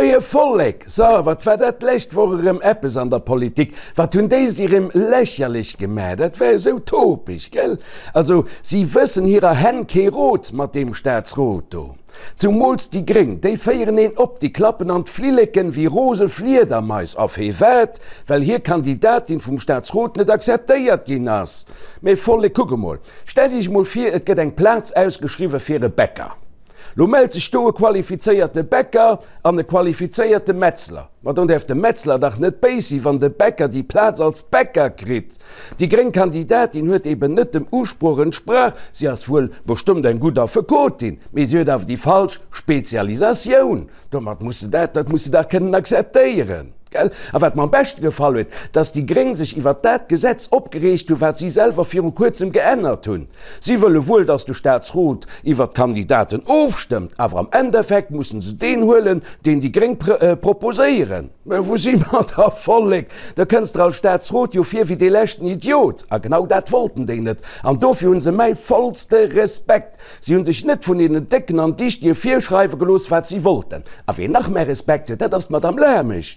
Moie Vollek! So, wat war dat d'lescht Woch erëm eppes an der Politik? Wat hunn déi sech erëm lächerlech gemaach? Dat war esou topeg, gell? Also, si wëssen hirer Hänn kee Rot mat deem Staatsrot do. Zumools déi Gréng, déi féieren een op, déi klappen an d'Flilleken wéi rose Fliedermais. A firwat? Well hir Kandidatin vum Staatsrot net akzeptéiert ginn ass. Mee Vollek, kuck emol, stellt iech emol vir, et gëtt eng Plaz ausgeschriwwe fir e Bäcker. Lo mellt sech do e qualifizéierte Bäcker an e qualifizéierte Metzler. Ma dann däerf de Metzler dach net béis sinn, wann de Bäcker déi Plaz als Bäcker kritt. Déi gréng Kandidatin huet eben net dem Usproch entsprach. Si ass wuel bestëmmt eng gutt Affekotin, mee si huet awer déi falsch Spezialisatioun. Domat muss se dat, dat muss se dach kënnen akzeptéieren. Gell? A wat mer am beschte gefall huet, dass déi Gréng sech iwwert dat Gesetz opgereegt hunn, wat si selwer viru kuerzem geännert hunn. Si wëlle wuel, dass de Staatsrot iwwert d'Kandidaten ofstëmmt, awer am Endeffekt mussen se deen huelen, deen déi Gréng proposéieren. Mä wou si mer da, Vollek? Da kënns der als Staatsrot jo vir wéi dee leschten Idiot. A genau dat wollten déi net. An dofir hu se mäi vollste Respekt. Si hunn sech net vun deenen Décken an Dichtige virschreiwe gelooss, wat si wollten. A ween nach mäi Respekt huet, dat ass d'Madame Lamesch.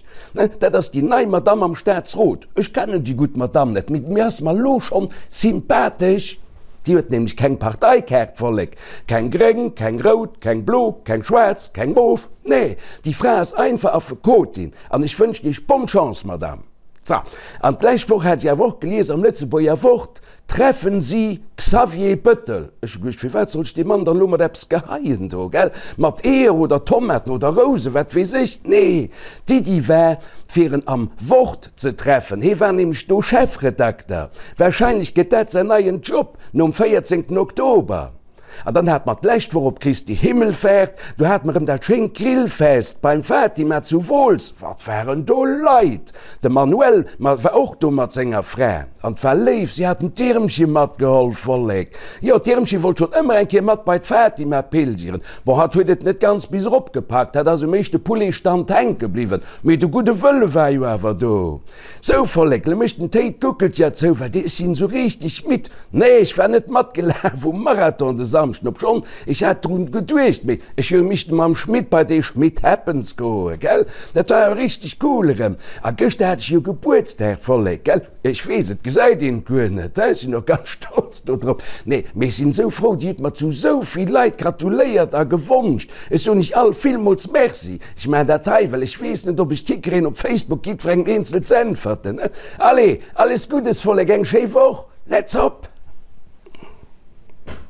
Dat ass déi nei Madame am Staatsrot. Ech kennen déi gutt Madame net, mee mir ass mer elo schonn sympathesch. Déi huet nämlech keng Parteikaart, Vollek. Keng gréng, keng rout, keng blo, keng schwaarz, keng mof. Nee, déi Fra ass einfach Affekotin. An ech wënschen Iech bonne Chance, Madame. So, an d'lescht Woch hat ech awer och gelies am Lëtzebuerger Wort, Treffen Sie Xavier Bëttel. Ech hu geduecht, firwat soll ech dee Mann dann elo mat eppes geheien do, gell? Mat Eeër oder Tomaten oder Rousen, wat weess ech? Nee, d'Iddi war, fir en am Wort ze treffen. Hee war nämlech do Chefredakter. Warscheinlech gëtt dat säin neien Job nom 14 Oktober. An dann hat mer d'lescht Woch op Christi Himmelfahrt, do hat mer erëm dat schéint Grillfest beim Fatima zu Wooltz. Wat waren do Leit! De Manuel war och do mat senger Fra an 't war léif, si haten d'Irmchen matgeholl. Vollek! Jo, d'Irmchen wollt schonn ëmmer eng Kéier mat bei d'Fatima pilgeren. Bon, hatt huet et net ganz bis erop gepackt, hat ass um éischte Pouletstand hänke bliwwen, mee de gudde Wëlle war jo awer do. Sou Vollek, lo mécht den Téi d'Guckelcher zou, well ech sinn esou richteg midd. Nee, ech war net matgelaf um Marathon de Samschden, obschonn ech hat drun geduecht, mee ech hu missten mam Schmit bei dee Schmit Happens goen, gell? Dat war jo richteg cool erëm. A gëschter hat ech jo Gebuertsdag, Vollek, gell? Ech weess, et gesäit een et guer net, ech sinn och ganz stolz do drop. Nee, mee ech sinn esou frou, Dir hutt mer zu esou vill Leit gratuléiert a gewonscht. Ech soen iech all villmools Merci. Ech maachen dat hei, well ech weess net, ob ech d'hikréien, op Facebook jiddwerengem eenzel ze äntwerten. Allez, alles Guddes, Vollek, eng schéi Woch, let's hop!